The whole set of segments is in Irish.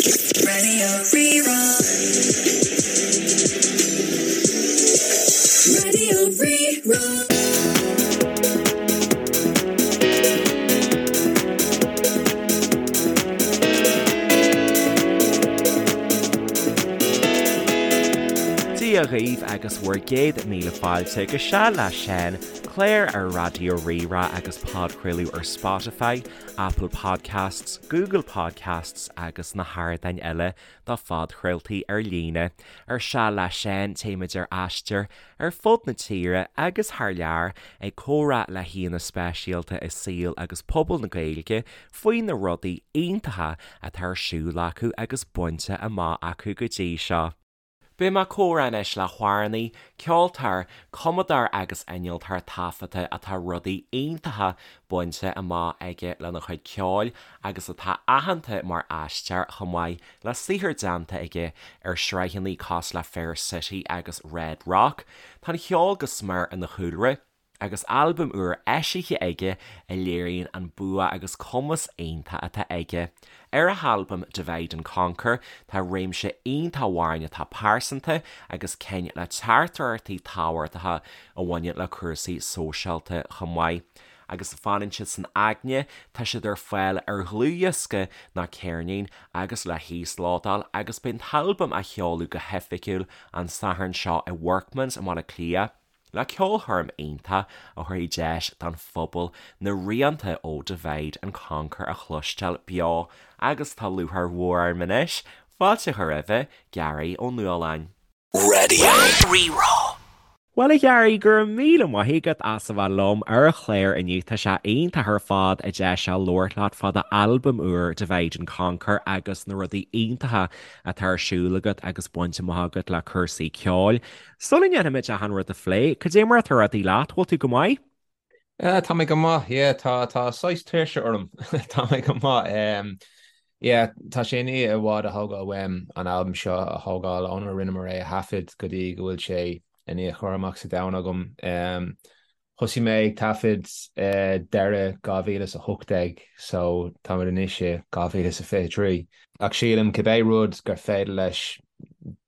Raidió Rí-Rá. Raidió Rí-Rá. Dia dhaoibh agus bhur gcéad míle fáilte go Seal le Seán, clár ar Raidió Rí-Rá agus podchraoladh ar Spotify, Apple Podcasts, Google Podcasts agus na hardáin eile do phodchraoltaí ar líne. Ar Seal le Seán, téimid ar aistear ar fud na tíre agus thar lear ag comhrá le haíonna speisialta i saol agus pobal na Gaeilge faoi na rudaí iontacha atá ar siúl acu agus bainte amach acu go dtí seo. Beidh mé ag comhrá anois le hamhránaí, ceoltóir, cumadóir agus innealtóir taifeadta atá rudaí iontacha bainte amach aige lena chuid ceoil agus atá aitheanta mar aisteoir chomh maith le saothar déanta aige ar shraitheanna cosúil le Fair City agus Red Rock. Tá an cheol go smior ina chúlra. agus albam úr eisithe aige a léiríonn an bua agus cumas iontach atá aige. Ar a halbam Divide and Conquer tá réimse iontach amhráin atá pearsanta agus cinn le teachtaireachtaí tábhachtacha a bhaineann le cúrsaí sóisialta chomh maith. Agus fanann siad san aigne, tá siad ar fáil ar dhlúthdhiosca nó ceirnín agus le híoslódáil agus beidh an t-albam á sheoladh go hoifigiúil an Satharn seo i Workman's i mBaile Átha Cliath. Le ceolchoirm iontach a thabharfaidh deis don phobal na rianta ó Divide and Conquer a chloisteáil beo agus tá lúcháir mhór orm anois fáilte a chur roimhe, Gearaí Ó Nualláin. Raidió Rí-Rá. Bhuel a Ghearaí, go raibh míle maith agat as a bheith liom ar an chlár inniu. Tá sé iontach ar fad an deis seo labhairt leat fá d'albam úr Divide and Conquer agus na rudaí iontacha atá ar siúl agat agus bainte amach agat le cúrsaí ceoil. Sula ndéanfaimid achan rud a phlé, cad é mar atá rudaí leat? Bhfuil tú go maith? Tá mé go maith, yeah, tá, tá saghas tuirse orm. Tá mé go maith. Um, yeah, tá sé i ndiaidh i bhfad a thógáil uaim an albam seo a thógáil ónar rinneamar é a thaifead go dtí go bhfuil sé i ndiaidh cur amach sa domhan agam. Um, Thosaigh mé ag taifead deireadh 2018 so táimid anois i 2023. Ach sílim cibé rud gur féidir leis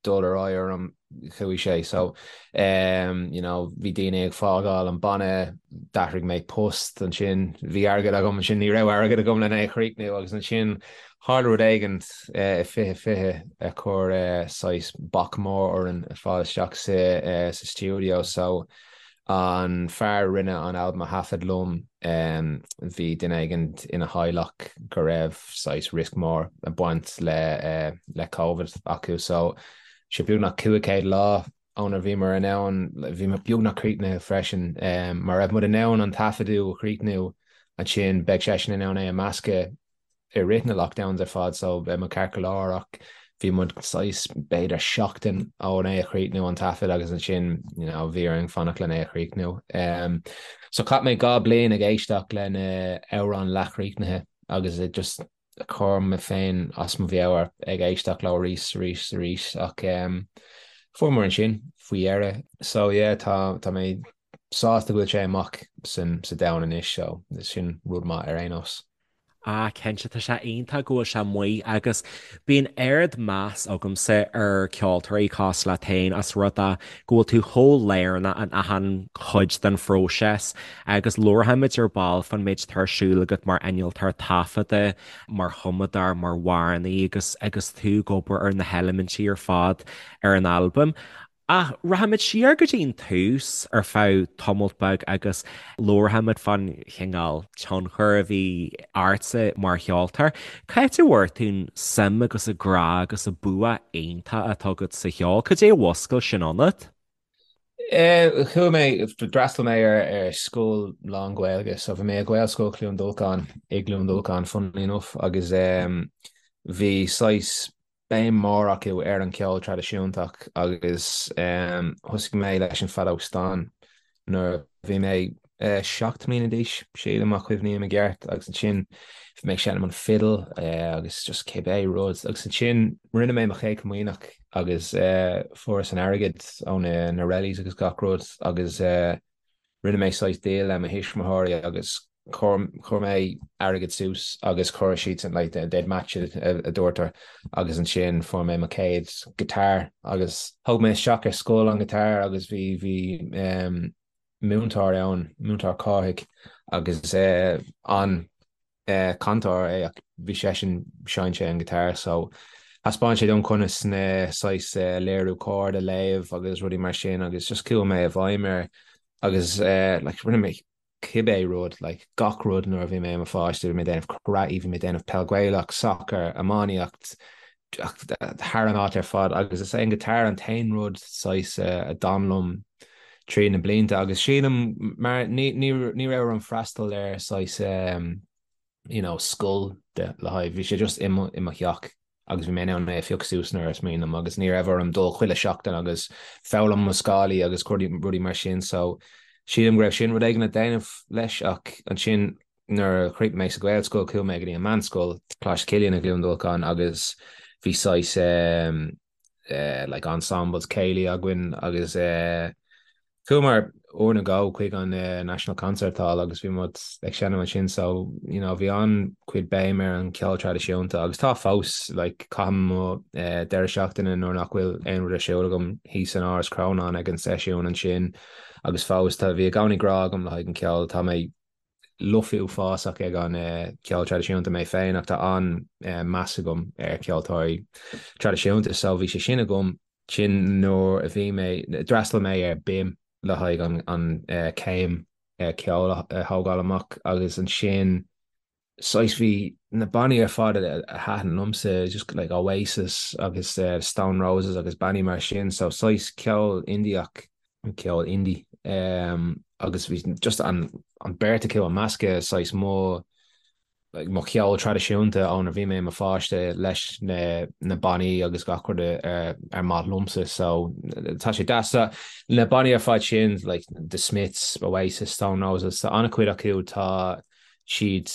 dul ar aghaidh orm, chuaigh sé. So you know bhí daoine ag fágáil an banna, d'athraigh mé post ansin, bhí airgead agam ansin, ní raibh airgead agam lena é a chríochnú agus ansin tharla rud éigin i 2020 a chuir saghas bac mór orainn fáil isteach sa stiúideo so An fear a rinne an albam a thaifead liom, bhí duine éigin ina theaghlach go raibh saghas riosca mór ag baint le le Covid acu so sé beagnach 500 lá ónar bhíomar in ann, bhí muid beagnach críochnaithe freisin. Má raibh muid in ann an taifeadadh a chríochnú ansin beidh seisean in ann é a meascadh i rith na lockdowns ar fad so beidh muid ceart go leor ach bhí muid saghas b'fhéidir seachtain ón é a chríochnú an taifead agus ansin you know bhí orainn fanacht len é a chríochnú. Um, so chaith mé 2 bliain ag éisteacht le na amhráin leathchríochnaithe agus ag just cur mé féin as mo mheabhair ag éisteacht leo arís arís arís ach um, fuaireamar ansin faoi dheireadh. So yeah tá tá mé sásta go bhfuil sé amach san sa domhan anois so sin rud maith ar aon nós. Ah, cinnte, tá sé iontach go bhfuil sé amuigh agus bíonn ard-mheas agamsa ar ceoltóirí cosúil leat féin as rud é go bhfuil tú chomh lárnach in achan chuid den phróiseas agus labharfaimid ar ball fán méid atá ar siúl agat mar innealtóir taifeadta, mar chumadóir, mar amhránaí agus agus tú ag obair ar na heilimintí ar fad ar an albam. Ach rachaimid siar go dtí an tús ar feadh tamalt beag agus labharfaimid fán chineál tionchar a bhí ortsa mar cheoltóir. Cá háit a bhfuair tú an suim agus an grá agus an bua iontach atá agat sa cheol? Cad é a mhuscail sin ionat? Chuaigh mé, d'fhreastail mé ar scoil lán-Ghaeilge, so bhí mé i Gaelscoil Chluain Dolcáin i gCluain Dolcáin, funnily enough, agus bhí saghas béim mór acu ar an cheol traidisiúntach agus thosaigh mé leis an feadóg stáin nuair a bhí mé 7 mbliana d'aois, sílim, má chuimhním i gceart, agus ansin bhí mé ag seinm an fidil agus just cibé rud agus ansin rinne mé mo chéad chomaoineach agus fuaireas an airgead ó na rellies agus gach rud agus rinne mé saghas deal le mo thuismitheoirí agus. Chuir mé airgead suas agus chuir siadsan like they'd match it a dúirtear agus ansin fuair mé mo chéad guitar agus thóg mé isteach ar scoil an guitar agus bhí bhí um, múinteoir ann, múinteoir Cárthaigh agus uh, an uh, cantóir é ach bhí seisean sheinn sé an guitar so thaispeáin sé dom conas na saghas uh, léiriú chord a léamh agus rudaí mar sin agus just chuaigh mé i bhfeidhm air agus uh, like rinne mé cibé rud, like gach rud nuair a bhí mé i mo pháiste, bhí mé ag déanamh karate, bhí mé ag déanamh peil Gaelach, sacar, iománaíocht, thar an áit ar fad agus is é an guitar an t-aon rud saghas a d'fhan liom trí na blianta agus sílim mar ní ní ní raibh orm freastal ar saghas you know scoil de le haghaidh bhí sé just i mo i mo theach agus bhí mé in ann é a phiocadh suas nuair is mian liom agus ní raibh orm dul chuile sheachtain agus foghlaim mo scálaí agus rudaí mar sin so sílim go raibh sin rud éigin le déanamh leis ach ansin nuair a chríochnaigh mé sa Ghaelscoil chuaigh mé go dtí an meánscoil, Coláiste Chilliain i gCluain Dolcáin agus bhí saghas like ensembles céilí againn agus chuamar uair nó dhó chuig an National Concert Hall agus bhí muid ag seinm ansin so you know bhí an-chuid béim ar an cheol traidisiúnta agus tá fós like caithim mo deireadh seachtaine nuair nach bhfuil aon rud ar siúl agam thíos in Áras Chrónáin ag an seisiún ansin agus fós tá bhí i gcónaí grá agam le haghaidh an ceol tá mé lofa uafásach ag an cheol traidisiúnta mé féin ach tá an-meas agam ar cheoltóirí traidisiúnta so bhí sé sin agam. Sin nuair a bhí mé, d'fhreastail mé ar BIMM le haghaidh an céim ceoil a thógáil amach agus ansin saghas bhí na bannaí ar fad a thaitin liomsa just like Oasis agus Stone Roses agus bannaí mar sin so saghas ceol Indiach ceol indie agus bhí just an an beirt acu ag meascadh saghas mo like mo cheol traidisiúnta ónar bhí mé i mo pháiste leis na na bannaí agus gach rud ar ar maith liomsa so tá sé deas na bannaí ar fad sin like The Smiths, Oasis, Stone Roses tá an-chuid acu tá siad,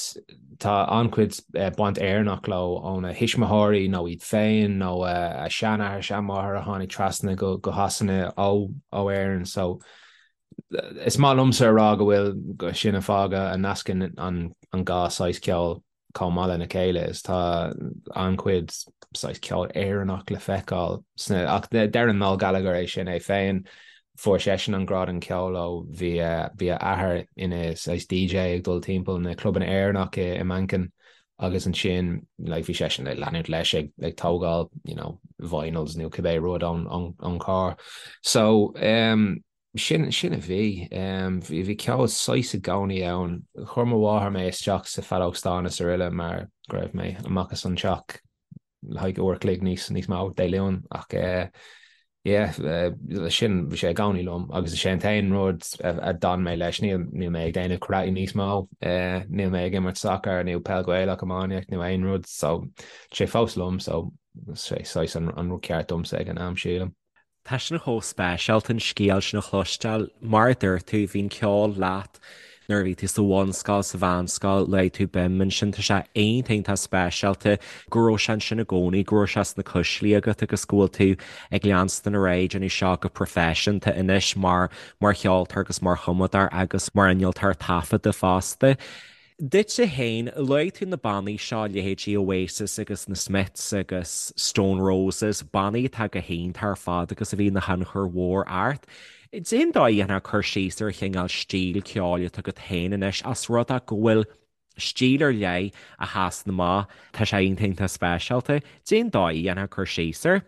tá an-chuid baint Éireannach leo óna thuismitheoirí nó iad féin nó a seanathair, seanmháthair a tháinig trasna go Shasana ó Éirinn. So is maith liomsa a rá go bhfuil, sin an fáth a nascann an dhá saghas ceoil chomh maith lena chéile is tá an-chuid saghas ceol Éireannach le feiceáil sna, ach deireann Noel Gallagher é sin é féin, fuair seisean an grá don cheol ó bhí bhí a athair ina saghas DJ ag dul timpeall na clubanna Éireannach i i Manchain agus ansin like bhí seisean ag leanúint leis ag ag tógáil you know vinyls nó cibé rud ón ón ón carr. So um, Sin, sin a bhí. Bhí, bhí ceol saghas i gcónaí ann. Chuir mo mháthair mé isteach sa feadóg stáin is araile mar go raibh mé amach as an teach le haghaidh uair a chloig níos, níos mó Dé Luain ach eh yeah, sin, bhí sé i gcónaí liom agus is é an t-aon rud a d'fhan mé leis. Níl, níl mé ag déanamh karate níos mó, eh níl mé ag imirt sacar nó peil Ghaelach, iománaíocht nó aon rud so tá sé fós liom so sé saghas an, an rud ceart domsa ag an am sílim. Tá sin chomh speisialta an scéal sin a chloisteáil. Mar a dúirt tú, bhí an ceol leat nuair a bhí tú sa bhunscoil, sa mheánscoil, luaigh tú BIMM ansin. Tá sé iontach iontach speisialta go raibh sé ansin i gcónaí, go raibh sé sna cuislí agat agus go bhfuil tú ag leanstan ar aghaidh ag déanamh seo go proifisiúnta anois mar mar cheoltóir agus mar chumadóir agus mar innealtóir taifeadta fosta. Duitse féin, luaigh tú na bannaí seo, leithéidí Oasis agus na Smiths agus Stone Roses, bannaí atá go hiontach ar fad agus a bhí ina thionchar mhór ort. Cén dóigh a ndéanfá cur síos ar an chineál stíl ceoil atá agat féin anois, as rud é go bhfuil stíl ar leith a sheasann amach, tá sé iontach iontach speisialta. Cén dóigh a ndéanfá cur síos air?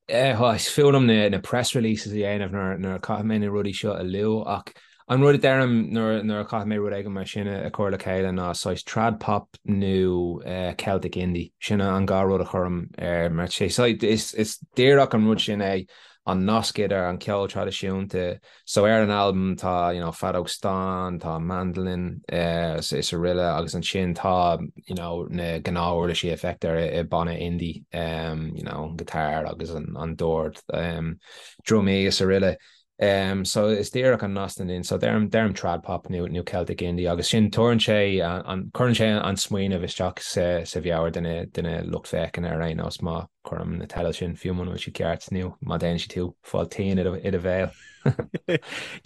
Is fuath liom na press releases a dhéanamh nuair a chaithfidh mé na rudaí seo a lua ach an rud a deirim nuair a chaithfidh mé rud éigin mar sin a chur le chéile ná saghas trad pop nó Celtic indie. Sin an dhá rud a chuirim air mar is díreach an rud sin é an nasc idir an ceol traidisiúnta So ar an albam tá you know feadóg stáin, tá mandolin is araile agus ansin tá you know na gnáth-uirlisí a feictear i banna indie you know an guitar agus an dord, drumaí is araile. So is díreach an nasc sin so deirim deirim trad pop nó nó Celtic indie agus sin tabharann sé an cuireann sé an smaoineamh isteach sa sa mheabhair de na de na lucht féachana ar aon nós má. Cuirim na teidil sin fiú muna bhfuil siad ceart nó má déanann siad tú fáil tinn i do bhéal.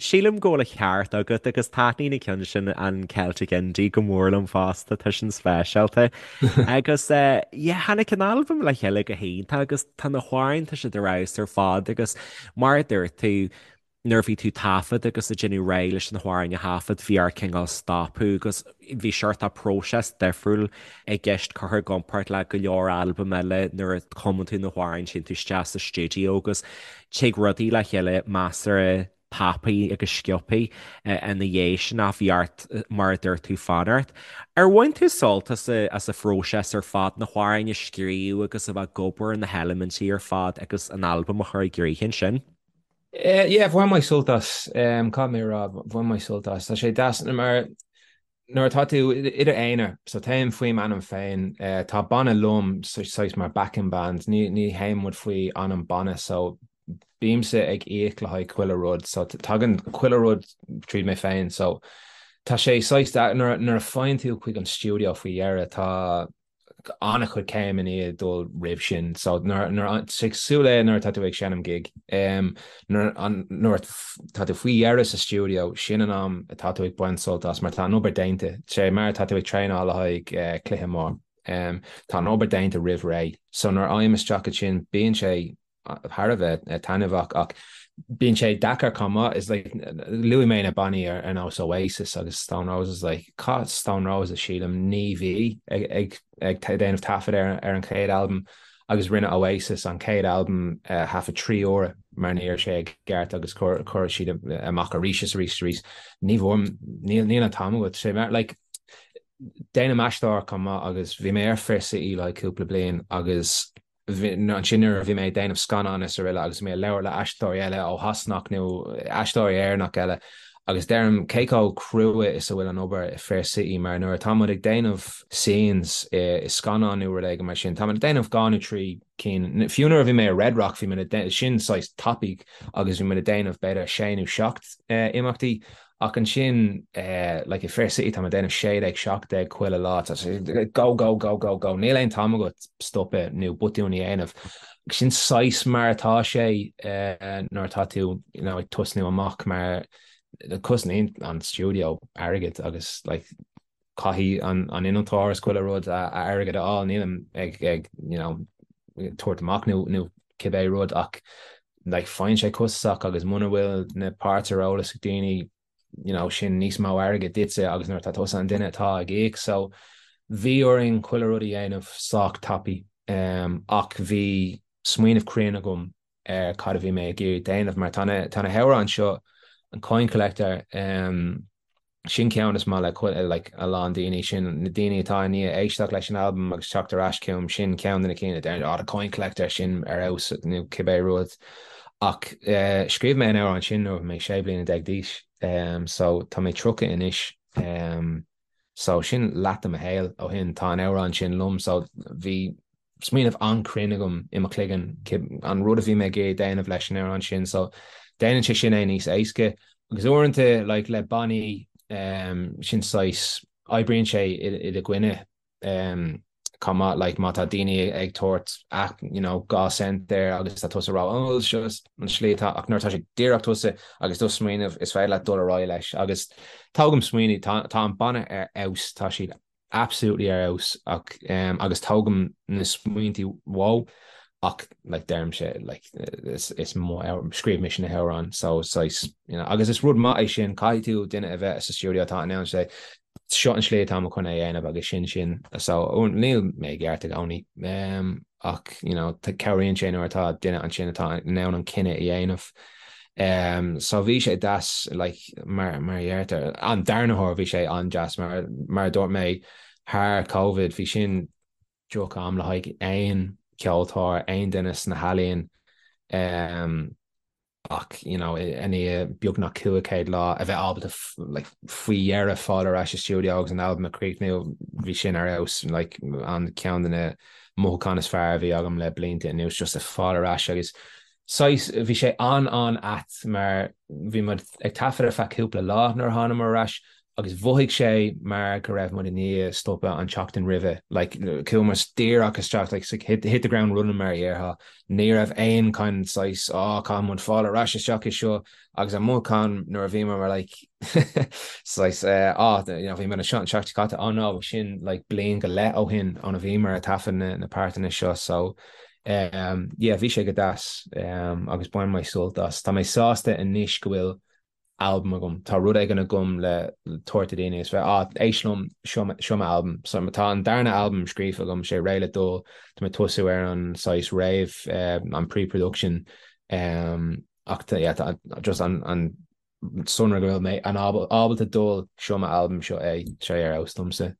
Sílim go bhfuil an ceart agat agus taitníonn an ceann sin an Celtic Indie go mór liom fosta, tá sin speisialta. Agus yeah, tháinig an albam le chéile go hiontach agus tá na hamhráin, tá siad ar fheabhas ar fad agus mar a dúirt tú, nuair a bhí tú ag taifead agus ag déanamh réidh leis na hamhráin a thaifead, bhí ort cineál stopadh agus bhí seort próiseas difriúil i gceist curtha i gcomparáid le go leor albam eile nuair a chumann tú na hamhráin, téann tú isteach sa stiúideo agus tig rudaí le chéile measartha tapaidh agus sciobthaí ina dhiaidh sin ach bhí ort, mar a dúirt tú, fanacht. Ar bhain tú sult as an phróiseas ar fad, na hamhráin a scríobh agus a bheith ag obair ar na heilimintí ar fad agus an albam a chur i gcrích ansin? Yeah, bhain mé sult as. Caithfidh mé a rá, bhain mé sult as. Tá sé deas mar nuair atá tú i d'aonar, so téim faoi m'ainm féin, tá banna liom saghas mar backing band, ní ní théann muid faoi ainm banna, so bímse ag íoc le haghaidh chuile rud, so tagann chuile rud tríd mé féin, so tá sé saghas nuair nuair a faigheann tú chuig an stiúideo faoi dheireadh, tá an-chuid céim i ndiaidh dul roimh sin. So nuair nuair cosúil le nuair atá tú ag seinm gig, nuair nuair tá tú faoi dheireadh sa stiúideo, sin an am atá tú ag baint sult as mar tá an obair déanta. Sé mar atá tú ag traenáil le haghaidh cluiche mór. Tá an obair déanta roimh ré. So nuair a fhaighim isteach ansin, bíonn sé thar a bheith taitneamhach ach bíonn sé deacair chomh maith. Is like luaigh mé na bannaí ar nós Oasis agus Stone Roses like chaith Stone Roses sílim 9 mhí ag ag ag déanamh taifead ar ar an chéad albam agus rinne Oasis an chéad albam thaifead 3 huaire mar ní raibh sé i gceart agus chuir chuir siad amach arís is arís is arís. Ní bhfuair níl níl an t-am agat sé mar like déanaim aisteoireacht chomh maith agus bhí mé ar Fair City like cúpla bliain agus Ansin nuair a bhí mé ag déanamh scannán is araile agus mé ag labhairt le aisteoirí eile ó Shasanach nó aisteoirí Éireannach eile agus deirim cé chomh crua is a bhfuil an obair i Fair City mar nuair atá muid ag déanamh scenes i scannán nó rud éigin mar sin, tá muid ag déanamh 2 nó 3 cinn, fiú nuair a bhí mé i Red Rock bhí muid ag, sin saghas tapaidh agus bhí muid ag déanamh b'fhéidir 6 nó 7 imeachtaí Ach ansin, like i Fair City tá mé ag déanamh 16, 17 chuile lá, tá sé go, go, go, go, go, níl aon t-am agat stopadh nó botún a dhéanamh. Sin saghas mar atá sé nuair atá tú you know ag tosnú amach mar cosnaíonn an stiúideo airgead agus like caithfidh an an innealtóir is chuile rud a airgead a fháil, nílim ag ag you know tabhairt amach nó nó cibé rud ach like faigheann sé costasach agus muna bhfuil na páirt ar eolas ag daoine you know sin níos mó airgead duitse agus nuair atá tusa an duine atá ag íoc so bhí orainn chuile rud a dhéanamh sách tapaidh um, ach bhí smaoineamh cruinn agam ar cad a bhí mé ag iarraidh déanamh mar tá na tá na hamhráin seo an Coin Collector um, Sin ceann is maith le like a lán daoine, sin na daoine atá i ndiaidh éisteacht leis an albam agus teacht ar ais chugam, sin ceann de na cinn a deireann oh the Coin Collector, sin ar fheabhas nó cibé rud. Ach eh scríobh mé an amhrán sin nuair a bhí mé 16 bliana d'aois, so tá mé 30 anois, so sin leath de mo shaol ó shin, tá an amhrán sin liom, so bhí smaoineamh an-chruinn agam i mo chloigeann an rud a bhí mé ag iarraidh déanamh leis an amhrán sin so déanann sé sin é níos éasca agus uaireanta like le bannaí um, sin saghas oibríonn sé i do choinne um, chomh maith like má tá daoine ag tabhairt ach you know 2 cent air agus tá tusa ag rá oh seo an slí atá ach nuair atá sé díreach tusa agus do smaoineamh is féidir leat dul ar aghaidh leis agus tógaim smaoineamh tá, tá an banna ar fheabhas tá siad absolutely ar fheabhas ach agus tógaim na smaointí uathu ach like deirimse like is is mo scríobh mise na hamhráin so saghas you know agus is rud maith é sin caithfidh tú duine a bheith sa stiúideo atá in ann sé seo an slí atá mé chun é a dhéanamh agus sin sin so níl mé i gceart i gcónaí um, ach you know cabhraíonn sé nuair atá duine ansin atá in ann an cinneadh a dhéanamh. Um, so bhí sé deas like, mar, mar a deirtear an darna huair bhí sé an-deas mar, mar a dúirt mé thar Covid bhí sin droch am le haghaidh aon ceoltóir, aon duine sna healaíon um, ach you know, i ndiaidh beagnach 500 lá a bheith ábalta like, faoi dheireadh fáil ar ais sa stiúideo agus an albam a chríochnú bhí sin ar fheabhas like, an ceann de na mothúcháin is fearr a bhí agam le blianta anuas just a fáil ar ais agus saghas bhí sé an-an-ait mar bhí muid ag taifead ar feadh cúpla lá nuair a thánamar ar ais. Agus mhothaigh sé mar go raibh muid i ndiaidh stopadh an tseachtain roimhe. Like, chuaigh muid díreach isteach, like, hit, hit the ground running mar a dhéarfá. Ní raibh aon kind saghas, oh, caithfidh muid fáil ar ais isteach i seo. Agus an mothúchán nuair a bhíomar mar like, saghas, eh, oh, you know, bhí muid anseo an tseachtain seo caite, oh no, sin like bliain go leith ó shin óna bhíomar ag taifead na, na páirteanna seo. So, um, yeah, bhí sé go deas, um, agus bhain mé sult as. Tá mé sásta anois go bhfuil albam agam. Tá rud éigin agam le tabhairt do daoine is bheith, ah, éist liom, seo, seo m'albam. So tá an darna albam scríofa agam, sé réidh le dul, tá mé ag tosú ar an saghas réamh, eh, an pre-production, um, ach tá, yeah, tá just an, an sonra go bhfuil mé an ábalta dul, seo m'albam, seo é, sé ar fheabhas domsa.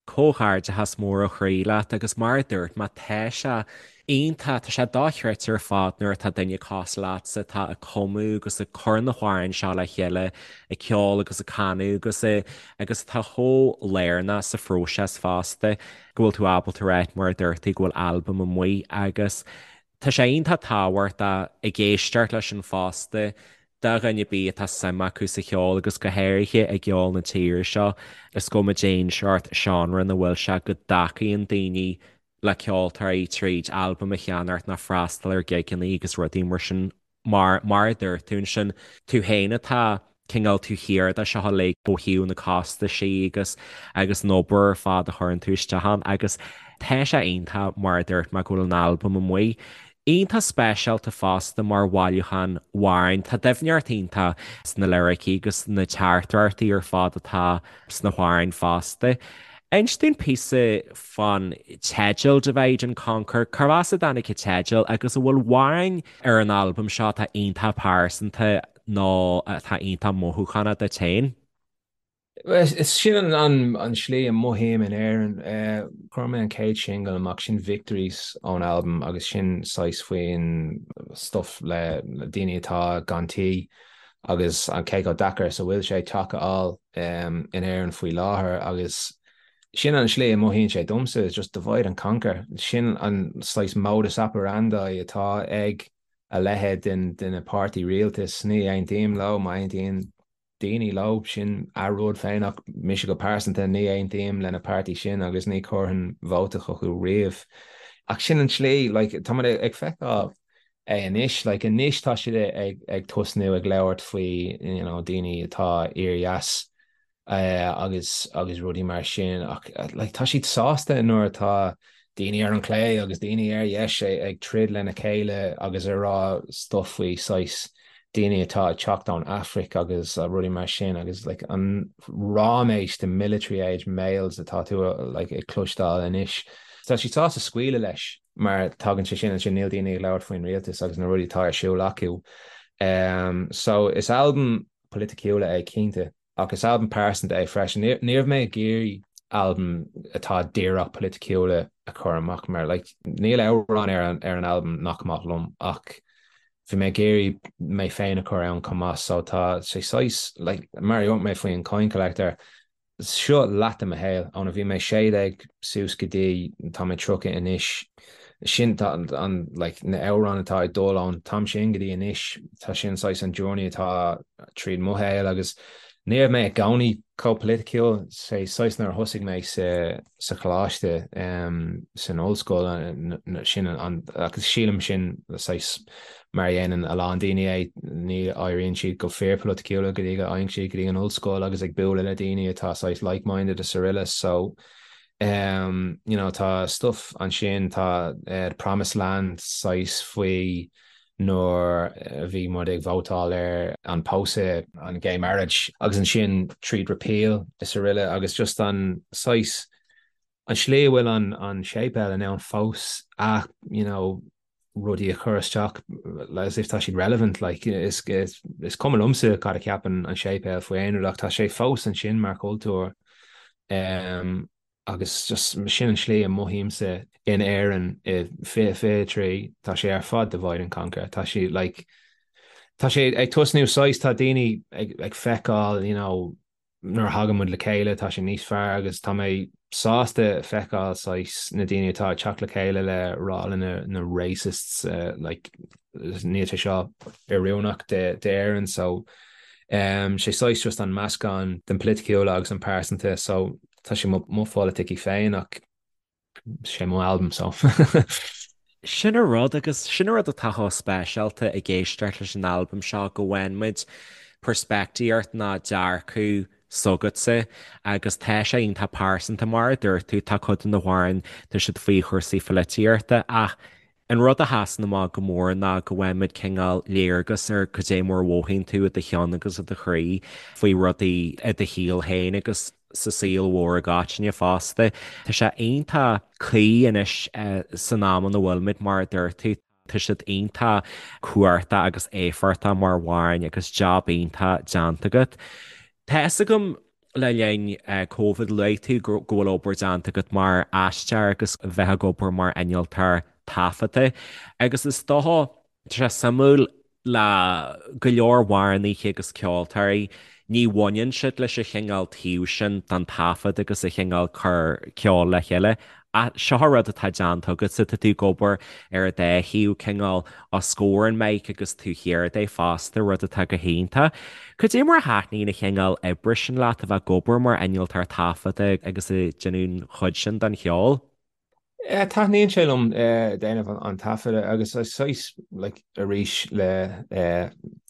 Comhghairdeachas mór ó chroí leat agus mar a dúirt mé tá sé iontach, tá sé dochreidte ar fad nuair atá duine cosúil leatsa atá ag cumadh agus ag cur na hamhráin seo le chéile, ag ceol agus ag canadh agus agus atá chomh lárnach sa phróiseas fosta go bhfuil tú ábalta a ráit mar a dúirt tú go bhfuil albam amuigh agus tá sé iontach tábhachtach ag éisteacht leis sin fosta do dhuine ar bith atá suim acu sa cheol agus go háirithe i gceol na tíre seo, is cuma cén seort seánra ina bhfuil sé go dtacaíonn daoine le ceoltóirí tríd albam a cheannacht nó freastal ar gigeanna agus rudaí mar sin mar mar a dúirt tú ansin, tú féin atá cineál taobh thiar de seo uilig ó thaobh na costaisí agus agus an obair ar fad a chuireann tú isteach ann agus tá sé iontach mar a dúirt mé go bhfuil an albam amuigh. Iontach speisialta fosta mar bhailiúchán amhrán. Tá doimhneacht iontach sna liricí agus na teachtaireachtaí ar fad atá sna hamhráin fosta. Inis dúinn píosa fán teideal Divide and Conquer, cárb as a dtáinig an teideal agus an bhfuil amhráin ar an albam seo atá iontach pearsanta nó atá iontach mothúchánach duit féin? Is sin an slí a mothaím in Éirinn. Chuir mé an chéad singil amach, sin Victories ón albam agus sin saghas faoin stuff le daoine atá gan tí agus an cé chomh deacair is a bhfuil sé teach a fháil in Éirinn faoi láthair agus sin an slí a mothaíonn sé domsa, is just divide and conquer. Sin an saghas modus operandi atá ag a leithéid den na páirtí rialtais. Ní aontaím leo, má aontaíonn daoine leo, sin a rud féin ach mise go pearsanta ní aontaím lena páirtí sin agus ní chuirfinn vóta chucu riamh. Ach sin an tslí, like, tá muid ag feiceáil é anois, like, anois tá siad ag, ag tosnú ag labhairt faoi, you know, daoine atá oir-dheas agus, agus rudaí mar sin ach, like, tá siad sásta nuair atá daoine ar an chlé agus daoine ar dheis ag troid lena chéile agus ag rá stuff faoi saghas daoine atá ag teacht ón Afraic agus rudaí mar sin agus like an ráiméis de military age males atá tú like ag cloisteáil anois. Tá siad sásta scaoileadh leis mar tagann sé sin ansin níl daoine ag labhairt faoin rialtas agus na rudaí atá ar siúl acu. Um, so is albam polaiticiúla é cinnte. Ach is albam pearsanta é freisin. Ní raibh mé ag iarraidh albam atá díreach polaiticiúla a chur amach mar like níl amhrán ar an ar an albam nach maith liom ach bhí mé ag iarraidh mé féin a chur ann chomh maith so tá sé saghas like mar a dúirt mé faoin Coin Collector seo leath de mo shaol óna bhí mé 16 suas go dtí tá mé 30 anois sin tá an like na amhráin atá ag dul ón t-am sin go dtí anois tá sin saghas an journey atá tríd mo shaol agus ní raibh mé i gcónaí chomh polaiticiúil sé saghas nuair a thosaigh mé sa sa choláiste um, san ollscoil sin an agus sílim sin saghas mar a dhéanann a lán daoine é ní éiríonn siad go fíorpholaiticiúla go dtí go dtéann siad go dtí an ollscoil agus ag bualadh le daoine atá saghas like-minded is araile so Um, you know, tá stuff ansin, tá uh, The Promised Land saghas faoi nuair a bhí muid ag vótáil ar an pósadh, an gay marriage, agus ansin tríd repeal is araile agus just an saghas an slí a bhfuil an, an séipéal in ann fós a, you know, rudaí a chur isteach as if tá siad relevant like is, is, is cuma liomsa cad a cheapann an séipéal faoi aon rud ach tá sé fós ansin mar chultúr um, agus just sin an slí a mothaímse in Éirinn i 2023 tá sé ar fad divide and conquer tá sé like tá sé ag tosnú saghas tá daoine ag, ag feiceáil you know nuair a thagann muid le chéile tá sé níos fearr agus tá mé sásta feiceáil saghas na daoine atá ag teacht le chéile le rá le na, na racists uh, like, níl sé seo oiriúnach d'Éirinn so. Sé saghas just an meascán den polaitiúla agus an pearsanta so tá sé mo pholaiticí féin ach sé mo albam so. Sin an rud agus sin an rud atá chomh speisialta ag éisteacht leis an albam seo go bhfaigheann muid peirspictíocht ná dearcadh s'agatsa agus tá sé iontach pearsanta mar a dúirt tú, tá cuid de na hamhráin, tá siad faoi chúrsaí pholaitíochta ach an rud a sheasann amach go mór ná go bhfaigheann muid cineál léargas ar cad é mar a mhothaíonn tú i do cheann agus i do chroí faoi rudaí i do shaol féin agus sa saol mhór i gcoitinne fosta. Tá sé iontach cuí anois san am ina bhfuilimid mar a dúirt tú. Tá siad iontach cumhachtach agus éifeachtach mar amhráin agus jab iontach déanta agat. Tá fhios agam le linn Covid luaigh tú go bhfuil obair déanta agat mar aisteoir agus bheith ag obair mar innealtóir taifeadta agus is dócha, tá sé suimiúil le go leor amhránaithe agus ceoltóirí, ní bhaineann siad leis an chineál taobh sin den taifead agus an chineál cur ceoil le chéile. Ach seo an rud atá déanta agatsa, tá tú ag obair ar an dá thaobh, cineál os comhair an mic agus taobh thiar de fosta, rud atá go hiontach. Cad é mar a thaitníonn an chineál oibre sin leat, a bheith ag obair mar innealtóir taifeadta agus ag déanamh an chuid sin den cheol? Taitníonn sé liom déanamh an taifeadta agus saghas like arís le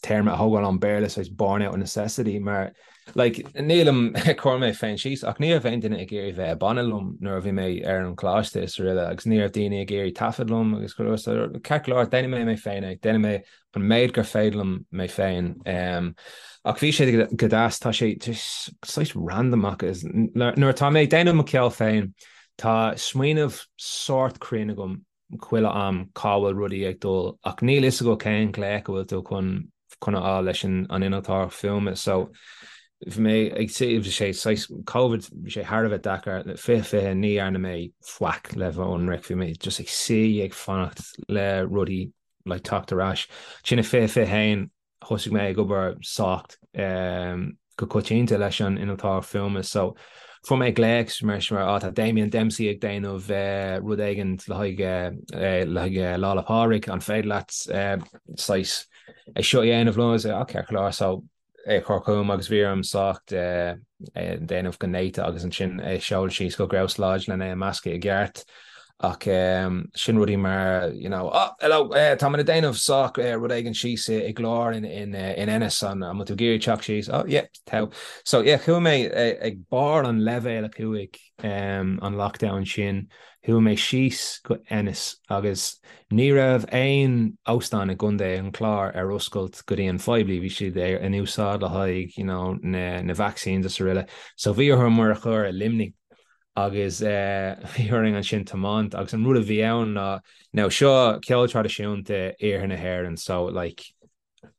téarma a thógáil ón Béarla saghas born out of necessity mar like nílim ag cur mé féin síos ach ní raibh aon duine ag iarraidh bheith i banna liom nuair a bhí mé ar an choláiste is araile agus ní raibh daoine ag iarraidh taifead liom agus go leor so ceart go leor déanfaidh mé mé féin é déanfaidh mé an méid gur féidir liom mé féin. Ach bhí sé go deas, tá sé saghas random agus nuair atá mé ag déanamh mo cheol féin, tá smaoineamh sórt cruinn agam chuile am cá bhfuil rudaí ag dul ach níl fhios agat cén glaoch a bhfuil tú chun chun a fháil leis an innealtóireacht fuaime so bhí mé ag bhí sé saghas Covid bhí sé thar a bheith deacair 2020 ní dhearna mé faic le bheith ionraic bhí mé just ag suí ag fanacht le rudaí like teacht ar ais. Ansin i 2021 thosaigh mé ag obair sách go coitianta leis an innealtóir fuaime so fuair mé glaoch mar sin mar tá Damien Dempsey ag déanamh rud éigin le haghaidh le haghaidh Lá 'le Pádraig an féidir leat saghas é seo a dhéanamh liom agus ceart go leor so é a chur chugam agus bhí orm sách é a dhéanamh go néata agus ansin é a sheoladh síos go Grouse Lodge lena é a meascadh i gceart. Ach sin rudaí mar, you know, oh, hello, tá mé ag déanamh sách rud éigin síos i gclár in Ennis, an bhfuil tú ag iarraidh teacht síos? Oh, yeah, tá. So, yeah, chuaigh mé ag barr an leibhéal 5 an lockdown sin, chuaigh mé síos go Ennis agus Ní raibh aon óstán i gContae an Chláir ar oscailt go dtí an phoiblí, bhí siad in úsáid le haghaidh you know na vaccines is araile. So bhí orthu muid a chur i Luimnigh agus bhí orainn ansin tiomáint agus an rud a bhí ann ná now seo ceol traidisiúnta iarthar na hÉireann so like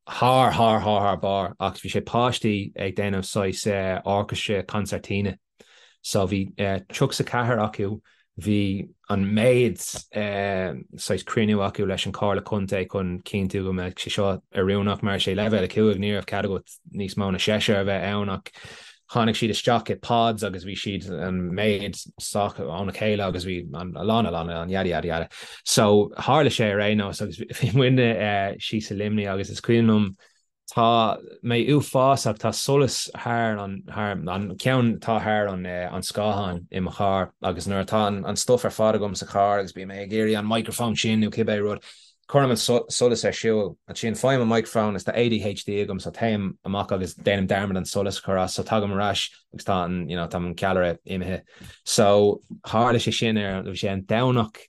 thar thar thar thar barr ach bhí sé páistí ag déanamh saghas orchestra concertina so bhí 34 acu bhí an méid saghas cruinniú acu leis an Comhairle Contae chun cinntiú go mbeadh sé seo oiriúnach mar sé leibhéal 5 ní raibh cead agat níos mó na seisear a bheith ann ach Tháinig siad isteach i pods agus bhí siad an méid sách óna chéile agus bhí a lán a lán a lán yada yada yada. So tharla sé ar aon nós agus bhí muidne síos i Luimnigh agus is cuimhin liom tá mé uafásach tá solas thar an thar an ceann atá thar an an scáthán i mo charr agus nuair atá an an stuff ar fad agam sa charr agus bím ag iarraidh an microphone sin nó cibé rud Cuirim an solas ar siúl. Ansin faighim an microphone is tá ADHD agam so téim amach agus déanaim dearmad an solas a chur as so tagaim ar ais agus tá an you know tá an ceallra imithe. So tharla sé sin ar bhí sé an Domhnach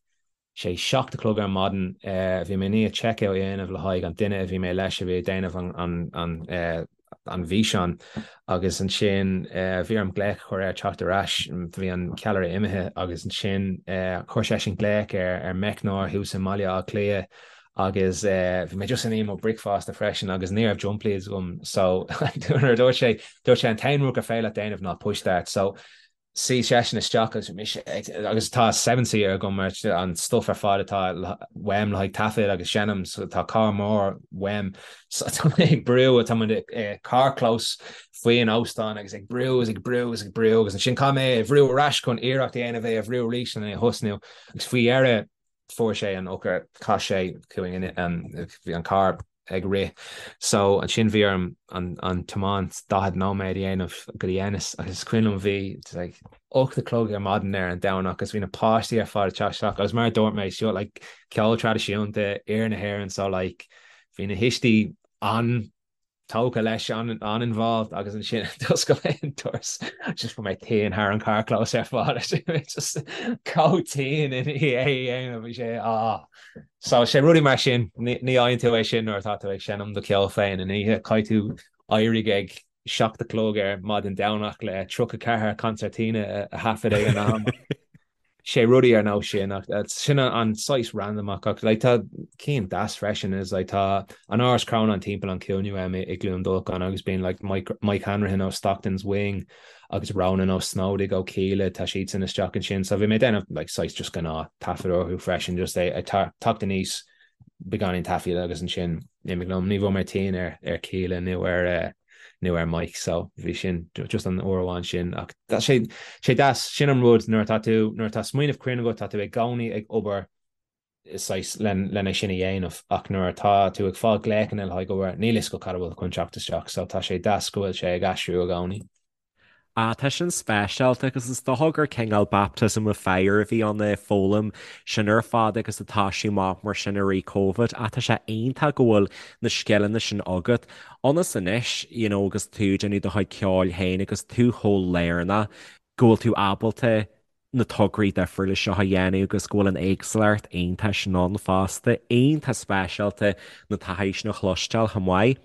sé 7 a chlog ar maidin bhí mé i ndiaidh check out a dhéanamh le haghaidh an duine a bhí mé leis a bhí ag déanamh an an an an bhfíseán agus ansin bhí orm glaoch a chur air teacht ar ais, bhí an ceallra imithe agus ansin chuir seisean glaoch ar ar meicneoir thuas i mBaile Átha Cliath agus bhí mé just i ndiaidh mo bricfeasta freisin agus ní raibh jump leads agam so nuair a dúirt sé dúirt sé an t-aon rud gur féidir leat déanamh ná push start so Suigh seisean isteach agus mise agus tá seven seater agam mar an stuff ar fad atá uaim le haghaidh taifead agus seinm so tá carr mór uaim so tá mé ag brú tá muid i carrchlós faoin óstán agus ag brú agus ag brú agus ag brú agus ansin caithfidh mé é a bhrú ar ais chun iarracht a dhéanamh é a bhrú arís chun é a thosnú agus faoi dheireadh fuair sé an eochair chas sé chugainn bhí an carr. ag rith. So ansin bhí orm an an tiomáint 40 nóiméad a dhéanamh go dtí Ennis agus is cuimhin liom bhí like 8 a chlog ar maidin ar an Domhnach agus bhí na páistí ar fad ag teacht isteach agus mar a dúirt mé seo like ceol traidisiúnta iarthar na hÉireann so like bhí na thuistí an tógtha leis an-involved agus ansin d'oscail mé an doras just bhí mé tinn thar an carrchlós ar fad just chomh tinn i ndiaidh é a dhéanamh bhí sé ah so sé rudaí mar sin ní fhaigheann tú é sin nuair atá tú ag seinm do cheol féin in oíche caithfidh tú éirigh ag 7 a chlog ar maidin Domhnach le 34 concertina a thaifead ag an am. sé rudaí ar nós sin ach sin an saghas random ach ach like tá cinn deas freisin is like tá an Áras Chrónáin timpeall an chúinne uaim i gCluain Dolcáin agus bíonn like Mike, Mike Hanrahan ó Stockton's Wing agus Ronan Ó Snodaigh ó Kíla tá siadsan isteach ansin so bhí mé ag déanamh like saghas just gnáth taifead orthu freisin just é ag teacht aníos beagáinín taifead agus ansin imigh liom ní bhfuair mé tinn ar ar Kíla nó ar uh, nó ar Mike so bhí sin just an uair amháin sin ach tá sé sé deas sin an rud nuair atá tú nuair atá smaoineamh cruinn agat tá tú i gcónaí ag obair saghas len len é sin a dhéanamh ach nuair atá tú ag fáil glaochanna le haghaidh obair níl fhios agat cad a bhfuil chun teacht isteach so tá sé deas go bhfuil sé ag aistriú i gcónaí. Ah, tá sin speisialta agus is dócha gur cineál baptism of fire a bhí ann ag foghlaim sin ar fad agus ag toisiú amach mar sin i rith Covid. Ach tá sé iontach go bhfuil na scileanna sin agat ionas anois, you know, agus tú ag déanamh do chuid ceoil féin agus tú chomh lárnach go bhfuil tú ábalta na tograí difriúla seo a dhéanamh agus go bhfuil an éagsúlacht iontach sin ann fosta. Iontach speisialta na taithí sin a chloisteáil chomh maith.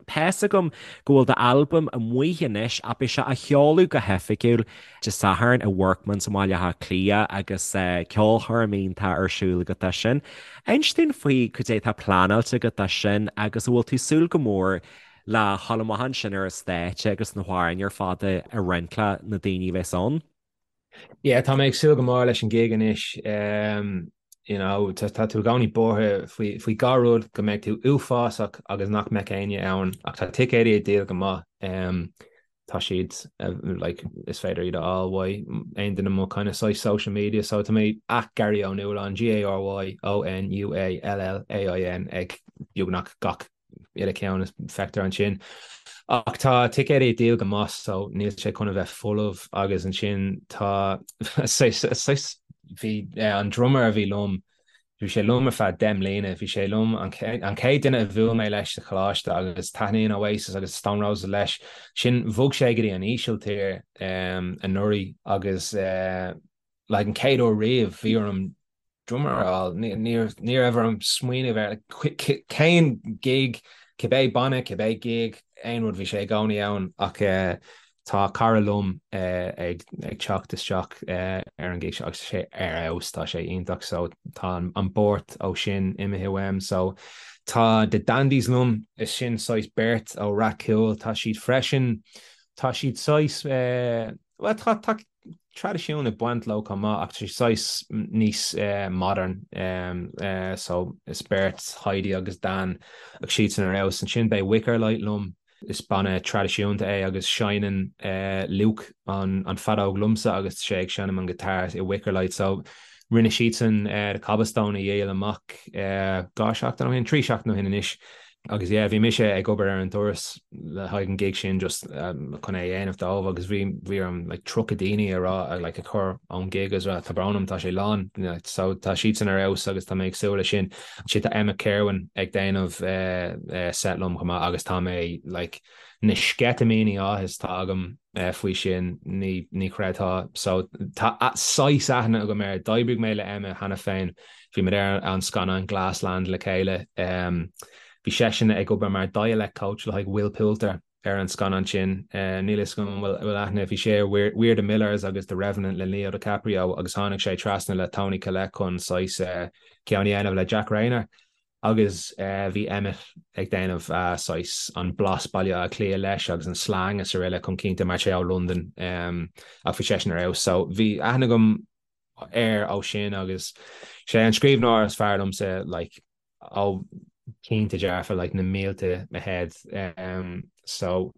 Tá's agam go bhfuil d'albam amuigh anois ach beidh sé á sheoladh go hoifigiúil Dé Sathairn i Workman's i mBaile Átha Cliath agus ceolchoirm iontach ar siúl agat dó sin. Inis dúinn faoi cad é atá pleanáilte agat dó sin agus an bhfuil tú ag súil go mór le dhul amach ansin ar an stáitse agus na hamhráin ar fad a roinnt le na daoine a bheas ann? Yeah, tá mé ag súil go mór leis an gig anois. Um, you know, tá, tá tú i gcónaí buartha faoi, faoi dhá rud go mbeidh tú uafásach agus nach mbeidh éinne ann ach tá ticéidí ag díol go maith. Um, tá siad uh, like, is féidir iad a fháil uaidh aon duine mo kind of saghas social media so tá mé at Gary Ó Nualláin G A R Y O N U A L L A I N ag beagnach gach uile ceann is feictear ansin. Ach tá ticéidí ag díol go maith so níl sé chun a bheith folamh agus ansin tá saghas bhí an drummer a bhí liom bhí sé liom ar feadh 10 mbliana bhí sé liom an chéad duine a bhuail mé leis sa choláiste agus taitníonn Oasis agus Stone Roses leis sin bhog sé go dtí an Ísiltír anuraidh agus like an chéad uair riamh bhí orm drummer a fháil. Ní raibh orm smaoineamh ar cén gig, cibé banna, cibé gig, aon rud bhí sé i gcónaí ann ach tá cara liom ag teacht isteach ar an gig seo agus tá sé ar fheabhas, tá sé iontach so tá an buairt ó sin imithe uaim so tá The Dandies liom, is sin saghas beirt ó Rath Cúil, tá siad freisin, tá siad saghas, bhuel tá, tá traidisiún ag baint leo chomh maith ach tá sé saghas níos modern so is beirt Heidi agus Dan ach siadsan ar fheabhas. Ansin beidh Wickerlight liom, is banna traidisiúnta é agus seinneann Luke an feadóg liomsa agus tá sé ag seinm an guitar i Wickerlight so rinne siadsan The Cobblestone a dhíol amach 2 seachtain ó shin, 3 seachtain ó shin anois. Agus yeah, bhí mise ag obair ar an doras le haghaidh an gig sin just chun é a dhéanamh dóibh agus bhí bhí orm like 30 daoine a rá like a chur ón gig agus rá tá brón orm tá sé lán so tá siadsan ar fheabhas agus tá mé ag súil leis sin. Ansin tá Emmet Kirwan ag déanamh set liom chomh maith agus tá mé like na sceitimíní áthais atá agam faoi sin ní ní chreidfeá. So tá saghas aithne agam air. D'oibrigh mé le Emmet cheana féin. Bhí muid ar an scannán Glassland le chéile. Bhí seisean ag obair mar dialect coach le haghaidh Will Poulter ar an scannán sin. Níl a fhios agam an bhfuil aithne. Bhí sé ar We're the Millers agus The Revenant le Leo DiCaprio agus tháinig sé trasna le Toni Collette chun saghas ceann a dhéanamh le Jack Reynor. Agus bhí Emmet ag déanamh saghas an blas Baile Átha Cliath leis agus an slang is araile chun cinnte mar tá sé ó Londain ach bhí seisean ar fheabhas. So bhí aithne agam air ó sin agus sé an scríbhneoir is fearr liomsa like ó cinnte dearfa like na mílte ahead. So.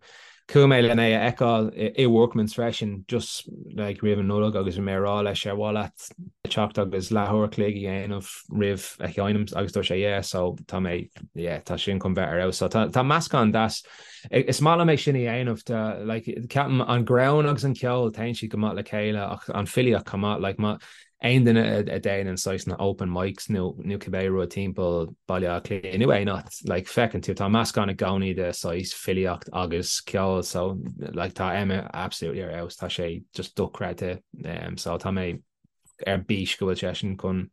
Chuaigh mé len é a fheiceáil i Workman's freisin just like roimh an Nollaig agus bhí mé ag rá leis ar mhaith leat teacht agus leathuair a chloig a dhéanamh roimh a sheinm agus dúirt sé yeah so tá mé yeah tá sin chun bheith ar fheabhas so tá tá meascán deas is maith liom é sin a dhéanamh tá like ceapaim an greann agus an ceol téann siad go maith le chéile ach an filíocht chomh maith like má aon duine a dhéanann saghas na open mics nó nó cibé rud timpeall Baile Átha Cliath nó aon áit like feiceann tú tá meascán i gcónaí de saghas filíocht agus ceol so like tá Emmet absolutely ar fheabhas tá sé just dochreidte um, so tá mé ar bís go bhfuil seisean chun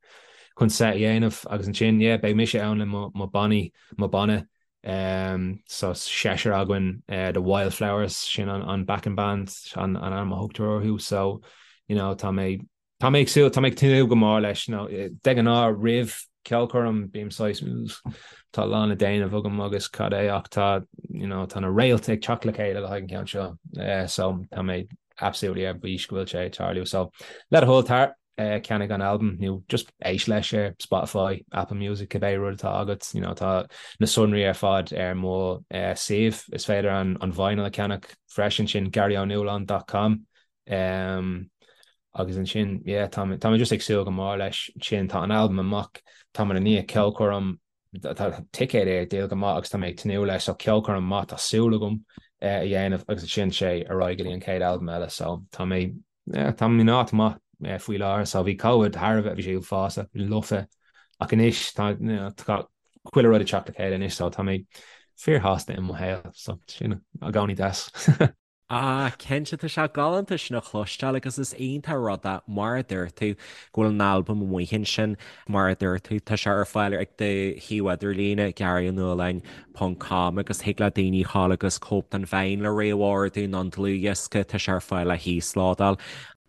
chun set a dhéanamh agus ansin yeah beidh mise ann le mo mo bannaí mo banna um, so seisear againn uh, the Wildflowers sin an, an backing band an, an ainm a thugtar orthu so you know tá mé Tá mé ag súil, tá mé ag tnúth go mór leis. Nó de ghnáth roimh ceolchoirm bím saghas tá a lán le déanamh agam agus cad é ach tá you know tá na réalta ag teacht le chéile le haghaidh an ceann seo. Eh, so tá mé absolutely ar bís go bhfuil sé ag tarlú. So le do thoil tar eh, ceannaigh an albam nó just éist leis ar Spotify, Apple Music, cibé rud atá agat, you know, tá na sonraí ar fad ar mo eh, suíomh. Is féidir an, an vinyl a cheannach freisin sin garyonualáin.com. Um, agus ansin, yeah, tá mé, tá mé just ag súil go mór leis sin. Tá an albam amach, tá mé i ndiaidh ceolchoirm, tá ticéid ar díol go maith agus tá mé ag tnúth leis, so ceolchoirm maith tá súil agam eh, a dhéanamh agus ansin sé ar aghaidh go dtí an chéad albam eile, so tá mé, yeah, tá mé in áit maith eh, faoi láthair, so bhí Covid thar a bheith, bhí sé uafásach, lofa, ach anois tá, you know, tá chuile rud ag teacht le chéile anois, so tá mé fíorshásta i mo shaol, so sin i gcónaí deas. Ah, cinnte, tá sé galánta sin a chloisteáil agus is iontach rud é, mar a dúirt tú, go bhfuil an albam amuigh ansin, mar a dúirt tú, tá sé ar fáil ag do shuíomh idirlíne, garyonualáin ponc com, agus thig le daoine a ghabháil agus cóip den vinyl a réamhordú nó an dlúthdhiosca, tá sé ar fáil le híoslódáil.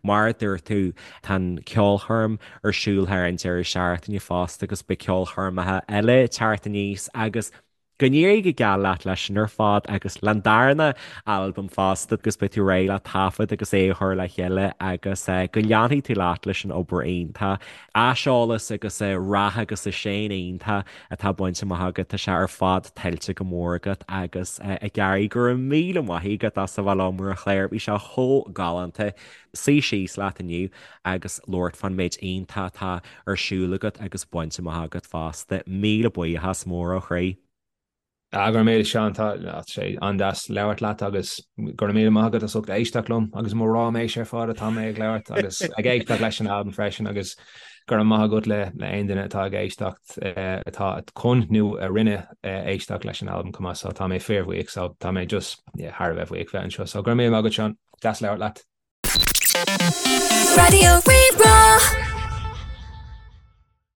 Mar a dúirt tú, tá an ceolchoirm ar siúl thar an deireadh seachtaine fosta agus beidh ceolchoirmeacha eile ag teacht aníos agus Go n-éirí go geal leat leis sin ar fad agus leis an darna albam fosta agus beidh tú réidh le taifead agus é a chur le chéile agus go leanfaidh tú leat leis an obair iontach, aiseolas agus rath agus seinn iontach atá bainte amach agat, tá sé ar fad tuillte go mór agat agus a Gary go raibh míle maith agat as a bheith liom ar an chlár, bhí sé chomh galánta suí síos leat inniu agus labhairt fán méid iontach atá ar siúl agat agus bainte amach agat fosta. Míle buíochas mór ó chroí. Ah, go raibh míle Seán, tá sé an-deas labhairt leat agus go raibh míle maith agat as ucht éisteacht liom agus mo ráiméis ar fad atá mé ag labhairt agus ag éisteacht leis an albam freisin agus go raibh maith agat le le aon duine atá ag éisteacht atá chun nó a rinne éisteacht leis an albam chomh maith so tá mé fíorbhuíoch so tá mé just yeah, thar a bheith buíoch bheith anseo so go raibh míle maith agat Seán, deas labhairt leat. Raidió Rí-Rá.